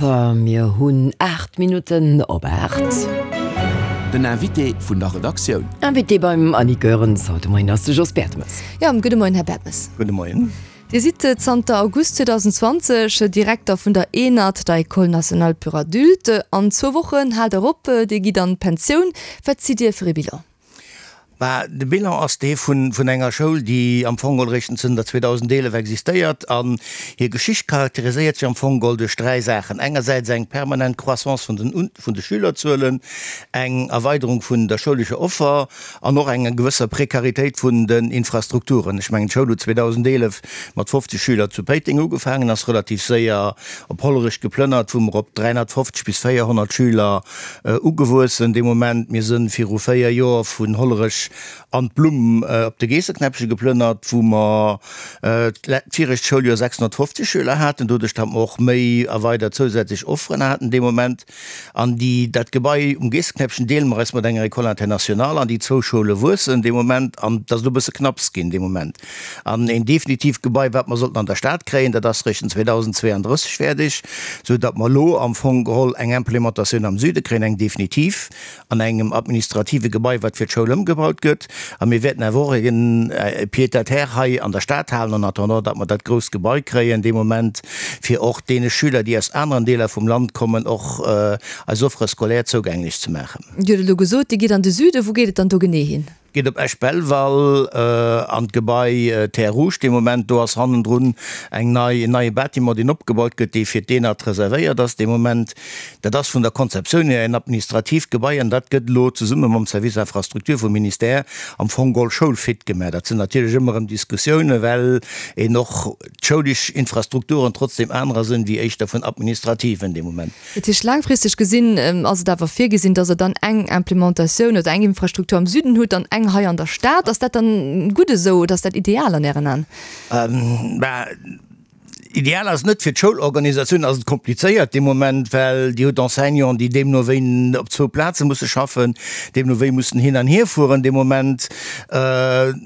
Arthur. Mir hunn 8 Minutten op 8. Den Invité vun der Redaktioun. Invité beim Annick Goerens haut de Moien ass de Jos Bertemes. Jo, gudde Moien, Här Bertemes. Gudde Moien. Dir sidd zanter August 2020 Direkter vun der ENAD, der École nationale pour adultes. An zwou Wochen haalt Der op, Dir gitt an d'Pensioun. Wat zitt Dir fir ee Bilan? Bah, de Bilan ass dee vun enger Schoul, déi am Fong geholl eréischt zënter 2011 existéiert. An hir Geschicht charakteriséiert sech am Fong geholl duerch dräi Saachen, engersäits eng permanent Croissance vun den vun de Schülerzuelen, eng Erweiderung vun der schoulescher Offer an och eng gewësser Prekaritéit vun den Infrastrukturen. Ech mengen, d'Schoul huet 2011 mat 50 Schüler zu Péiteng ugefaangen, ass relativ séier op Hollerech geplënnert, wou mer op 350 bis 400 Schüler Ugewuessen dee Moment. Mir sënn viru 4 Joer vun Hollerech an d'Blumm op de Geesseknäppche geplënnert, wou mer d'virecht Schouljoer 650 Schüler haten, doduerch datt mer och méi erweidert zousätzlech Offeren haten dee Moment. An déi, dat Gebai um Geesseknäppchen deele mer eis mat enger École internationale an déi zwou Schoule wuessen dee Moment an et ass elo e bësse knapps ginn dee Moment. An een definitiivt Gebai, wat mer sollten an der Stad kréien, dat ass Richtung 2032 fäerdeg, sou datt mer elo am Fong geholl eng Implementatioun am Süde kréien, eng definitiv, an engem administrative Gebai, wat fir d'Schoul ëmgebaut gëtt. A mir wäerten awer och e Pied-à-terre hei an der Stad halen, en attendant, datt mer dat grousst Gebai kréien dee Moment, fir och deene Schüler, déi aus aneren Deeler vum Land kommen, och eis Offre scolaire zougänglech ze maachen. Dir hutt elo gesot, Dir gitt an de Süden. Wou geet et dann do genee hin? Geet op Esch-Belval an d'Gebai Terres Rouges dee Moment. Do ass hannendrun eng nei, en neie Bâtiment, deen opgebaut gëtt, dee fir d'ENAD reservéiert ass dee Moment. Dat ass vun der Konzeptioun hier en administratiivt Gebai an dat gëtt elo zesumme mam Service Infrastructure vum Ministère am Fong geholl schoulfit gemaach. Dat sinn natierlech ëmmer erëm Diskussiounen, well een och d'schoulesch Infrastrukturen trotzdem anerer sinn wéi éischter vun administrativen dee Moment. Dat heescht, laangfristeg gesinn ass et awer virgesinn, datt Der dann eng Implementatioun oder eng Infrastruktur am Süden hutt an eng hei an der Stad. Ass dat dann gutt esou oder ass dat ideal an Ären Aen? Bah, ideal ass et net. Fir d'Schoulorganisatioun ass et komplizéiert dee Moment, well Dir hutt Enseignanten, déi deemno wéi op zwou Plaze musse schaffen, deemno wéi mussen hin an hierfueren dee Moment.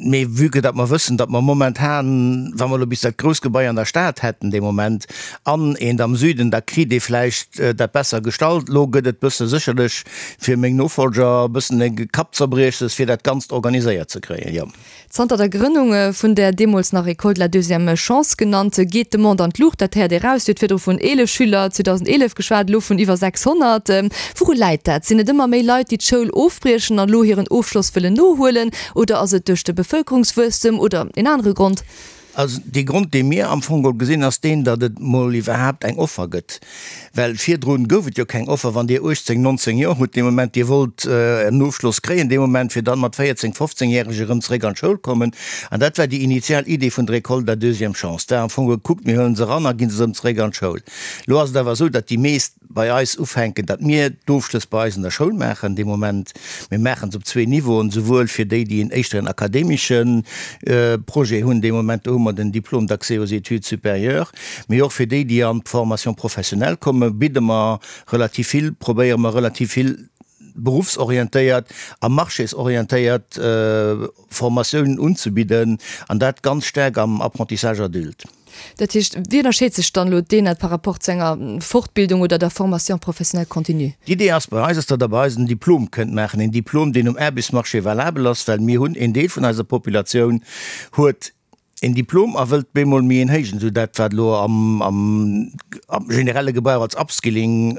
Mee vue que datt mer wëssen, datt mer momentan, wa mer elo bis dat grousst Gebai an der Stad hätten dee Moment an eent am Süden, da kritt ee vläicht dat besser gestallt. Elo gëtt et bësse sécherlech fir meng Nofolger e bëssen e Kappzerbriechses, fir dat Ganzt organiséiert ze kréien, jo. Zanter der Grënnung vun där deemools nach École de la deuxième chance genannt, geet d'Demande an d'Luucht. Dat héiert ee raus. Dir hutt virdru vun 11 Schüler 2011 geschwat, elo vun iwwer 600. Wouru läit dat? Sinn et ëmmer méi Leit, déi d'Schoul ofbriechen an elo hiren Ofschloss wëllen nohuelen? Oder ass et duerch de Bevëlkerungswuesstem oder een anere Grond? Also dee Grond, dee mir am Fong geholl gesinn, ass deen, datt et mol iwwerhaapt eng Offer gëtt. Well virdrun gouf et jo keng Offer. Wann Dir 18, 19 Joer hutt dee Moment, Dir wollt en Ofschloss kréien dee Moment, fir dann mat 14, 15 järeg erëm zeréck an d'Schoul kommen. An dat war déi initial Idee vun der École de la deuxième chance. Et war am Fong gekuckt, mir huelen se eran a ginn se erëm zeréck an d'Schoul. Elo ass et awer esou, datt déi meescht bei eis ufänken, datt mir d'Ofschlëss bei eis an der Schoul maachen dee Moment. Mir maachen se op zwee Niveauen, souwuel fir déi, déi en éischter en akademesche Projet hunn dee Moment, do hu mer den Diplôme d'accès aux études supérieures, mee och fir déi, déi an d'Formation professionnelle kommen, bidde mer relativ vill, probéiere mer relativ vill beruffsorientéiert a marchésorientéiert Formatiounen unzebidden, an dat ganz staark am Apprentissage adulte. Dat heescht, wéi ënnerscheet sech dann elo d'ENAD par rapport zu enger Fortbildung oder der Formation professionnelle continue? D'Idee ass bei eis, ass, datt Der bei eis en Diplom kënnt maachen, een Diplom, deen um Aarbechtsmarché valabel ass, well mir hunn, een Deel vun eiser Populatioun huet een Diplom a wëllt bemol méi een héijen, esou dat, wat elo am, am, am generelle Gebrauch als Upskilling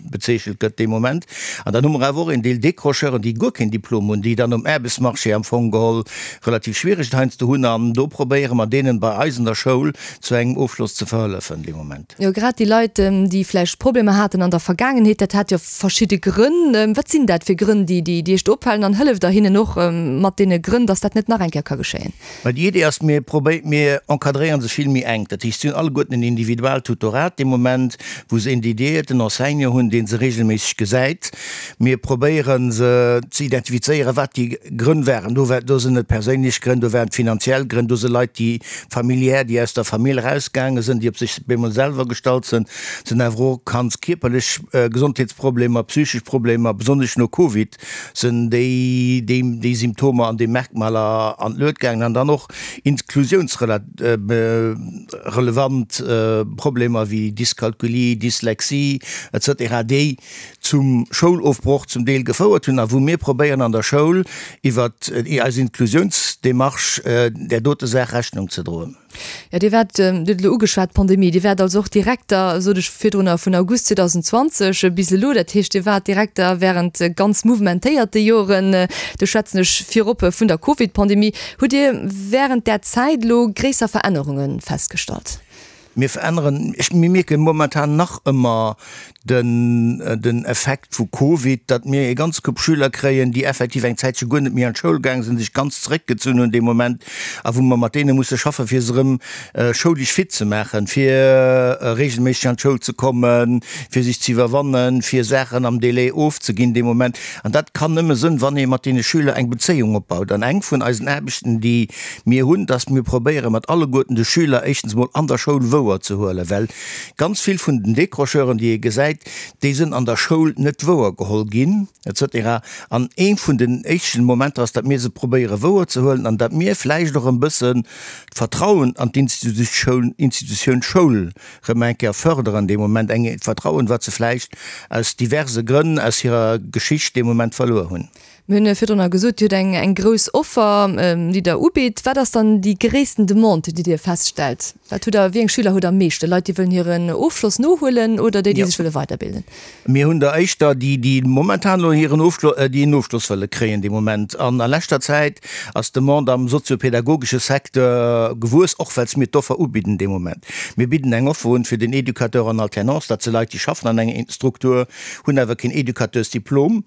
bezeechent gëtt dee Moment. An dann hu mer awer och een Deel Décrocheuren, déi guer keen Diplom hunn, déi dann um Aarbechtsmarché am Fong geholl relativ schwiereg et heiansdo hunn an do probéiere mer deenen bei eis an der Schoul zu engem Ofschloss ze verhëllefen dee Moment. Jo, grad déi Leit, déi vläicht Problemer haten an der Vergaangenheet, dat hat jo verschidde Grënn. Wat sinn dat fir Grënn, déi déi Iech do opfalen an hëlleft Der hinnen och mat deene Grënn, datt dat net nach eng Kéier ka geschéien? Mä déi Idee ass, mir probéi, mir encadréiere se vill méi enk. Dat heescht, si hunn alleguerten en Individualtutorat dee Moment, wou se een dediéierten Enseignant hunn, dee se regelméisseg gesäit. Mir probéiere se ze identifizéieren, wat déi Grënn waren. Do war, do sinn et perséinlech Grënn, do waren et finanziell Grënn, do si Leit, déi familiär, déi aus der Famill erausgaange sinn, déi op sech bemol selwer gestallt sinn, sinn awer och ganz kierperlech Gesondheetsproblemer, psychesch Problemer, besonnesch no Covid sinn déi, déi, déi Symptomer an déi Merkmaler an d'Luet gaangen an dann och Inklusiouns. inklusiounsrelevant Problemer wéi Dyskalkulie, Dyslexie etc. Déi zum Schoulofbroch zum Deel gefouert hunn a wou mir probéieren an der Schoul iwwer eis Inklusiounsdemarche där dote Saach Rechnung ze droen. Jo, Dir waart, Dir hutt et elo ugeschwat, d'Pandemie, Dir waart also och Direkter, sot ech virdrunner, vun August 2020 bis elo. Dat heescht, Dir waart Direkter während ganz mouvementéierte Joren. Do schwätzen ech virop vun der Covid-Pandemie. Hutt Dir während där Zäit elo gréisser Verännerunge festgestallt? Mir veränneren, ech, mir mierke momentan nach ëmmer den, den Effekt vu Covid, datt mir e ganz Koup Schüler kréien, déi effektiv eng Zäitche guer net méi an d'Schoul gaang sinn, sech ganz zeréckgezunn hunn dee Moment a wou mer mat deene musse schaffen, fir se erëm schoulesch fit ze maachen, fir reegelméisseg an d'Schoul ze kommen, fir sech ze iwwerwannen, fir Saachen am Délai ofzeginn dee Moment. An dat kann nëmme sënn, wann ee mat deene Schüler eng Bezéiung opbaut. An eng vun eisen Aarbechten, déi Mir hunn, dass mir probéiere mat alleguerten de Schüler éischtens emol an der Schoul wouer ze huelen, well ganz vill vun den Décrocheuren, déi ee gesäit, déi sënn an der Schoul net wouer geholl ginn et cetera. An ee vun den éischten Momenter ass, datt mir se probéiere wouer ze huelen an datt mir vläicht och en bëssen d'Vertrauen an d'Institutioun, Institutioun Schoul rëm eng Kéier förderen dee Moment, eng Vertrauen, wat se vläicht aus diverse Grënn aus hirer Geschicht dee Moment verluer hunn. Mir hunn virdrunner gesot, Dir hutt eng eng grouss Offer, déi Der ubitt. Wat ass dann déi gréissten Demande, déi Dir feststellt? Wat hutt Der, wéi eng Schüler hutt Der am meeschten? Leit, déi wëllen hiren Ofschloss nohuelen oder déi, déi sech wëlle weiderbilden? Mir hunn der éischter déi, déi momentan elo hiren Ofschlo, déi en Ofschloss wëlle kréien de Moment. An a leschter Zäit ass d'Demande am soziopedagogesche Secteur gewuess, och well s mir d'Offer ubidden de Moment. Mir bidden eng Offer un fir den Educateur en alternance, dat si Leit, déi schaffen an enger Struktur, hunn awer keen Educateursdiplom.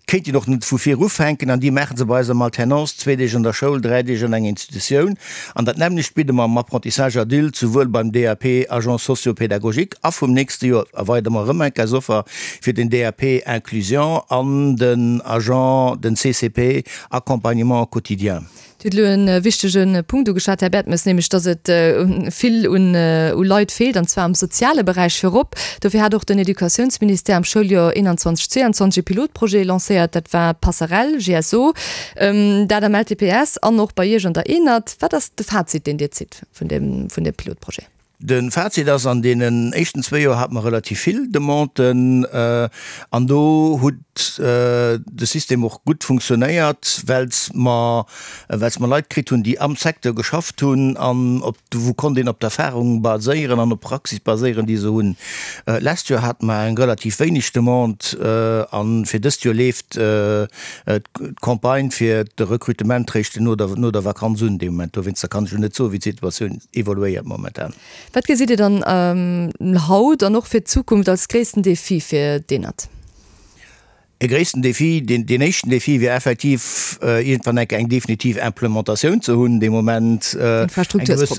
Kéint een och net vu vir ufänken an déi maache se bei eis am Alternance, zwee Deeg an der Schoul, dräi Deeg an enger Institutioun. An dat nämmlecht bidde mer am Apprentissage adulte, souwuel beim DAP Agent socio-pédagogique a vum nächste Joer erweidere mer erëm eng eis Offer fir den DAP Inclusion an den Agent, den CCP Accompagnement quotidien. Dir hutt elo e wichtege Punkt ugeschwat, Här Bertemes, nämlech datt et vill un Leit feelt, an zwar am soziale Beräich virop. Dofir hat och den Educatiounsministère am Schouljoer 21, 22 e Pilotprojet lancéiert, dat war d'Passerell GSO, dat am LTPS an och bei Iech an der ENAD. Wat ass de Fazit, deen Dir zitt vun deem Pilotprojet? De Fazit ass, an deenen éischten zwéi Joer hate mer relativ vill Demanden an do huet de System och gutt funktionéiert, well mer, well mer Leit kritt hunn, déi am Secteur geschafft hunn an op, wou konnt een op d'Erfahrung baséieren an op d'Praxis baséieren, déi se hunn. D'lescht Joer hate mer eng relativ wéineg Demande a fir dëst Joer leeft d'Campagne fir de Recrutement réischt no der, no der Vakanz un dee Moment. Dowéinster kann ech elo net soen, wéi d'Situatioun evoluéiert momentan. Wat gesitt Dir dann haut an och fir d'Zukunft als gréissten Defi fir d'ENAD? E gréissten Defi, deen, deen éischten Defi wier effektiv iergendwann eng Kéier eng definitiv Implementatioun ze hunn dee Moment, eng gewëss,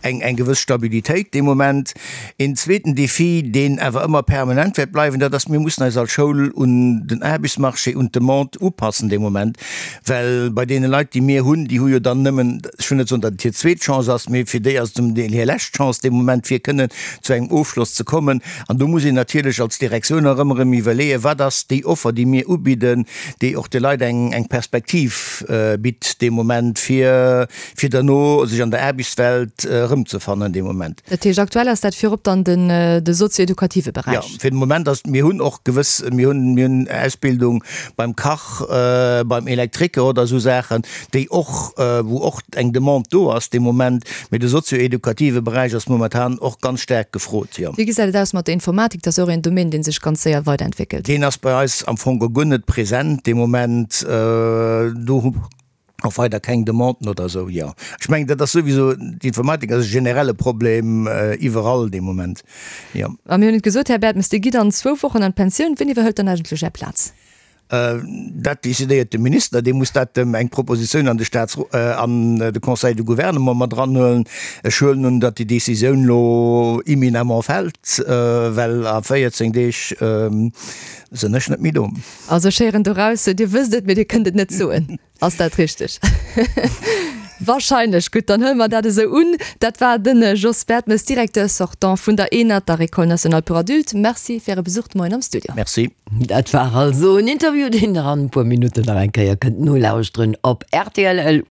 eng, eng gewëss Stabilitéit dee Moment. Een zweeten Defi, deen awer ëmmer permanent wäert bleiwen, dat ass, mir mussen eis als Schoul un den Aarbechtsmarché, un d'Demande upassen dee Moment, well bei deene Leit, déi mir hunn, déi hu jo dann nëmmen, ech wëll net soen, datt et hir zweet Chance ass, mee fir déi ass et zum Deel hir lescht Chance dee Moment, fir kënnen zu engem Ofschloss ze kommen. An do muss een natierlech als Direktioun och ëmmer erëm iwwerleeën, Wat ass déi Offer, déi mir ubidden, déi och de Leit eng, eng Perspektiv bitt dee Moment, fir, fir derno sech an der Aarbechtswelt erëmzefannen dee Moment. Dat heescht, aktuell ass dat virop dann den, de sozio-edukative Beräich? Jo, fir de Moment ass, mir hunn och gewëss, mir hunn, mir hunn Ausbildung beim Kach, beim Elektriker oder esou Saachen, déi och, wou och eng Demande do ass de Moment, mee de sozio-edukative Beräich ass momentan och ganz staark gefrot, jo. Wéi gesäit et aus mat der Informatik? Dat ass och een Domaine, dee sech ganz séier weiderentwéckelt. Deen ass bei eis am Fong guer net present de Moment. Do hu mer och weider keng Demanden oder esou, jo. Ech mengen, dat ass souwisou, d'Informatik ass e generelle Problem iwwerall de Moment, jo. A mir hunn et gesot, Här Bertemes, Dir gitt an zwou Wochen an d'Pensioun. Wien iwwerhëlt dann eigentlech Är Plaz? Dat decidéiert de Minister, dee muss dat eng Propositioun an de Staats-, an de Conseil de Gouvernement mat eranhuelen. Ech huelen un, datt déi Décisioun elo imminemment fält, well a 14 Deeg sinn ech net méi do. Also ech héieren doraus, Dir wësst et, mee Dir kënnt et net soen. Ass dat richteg? Wahrscheinlech. Gutt, dann huele mer dat esou un. Dat war de Jos Bertemes, Directeur sortant vun der ENAD, der École nationale pour adultes. Merci fir Äre Besuch de Moien am Studio. Merci. Dat war also en Interview, deen Der an e puer Minutten nach eng Kéier kënnt nolauschteren op rtl.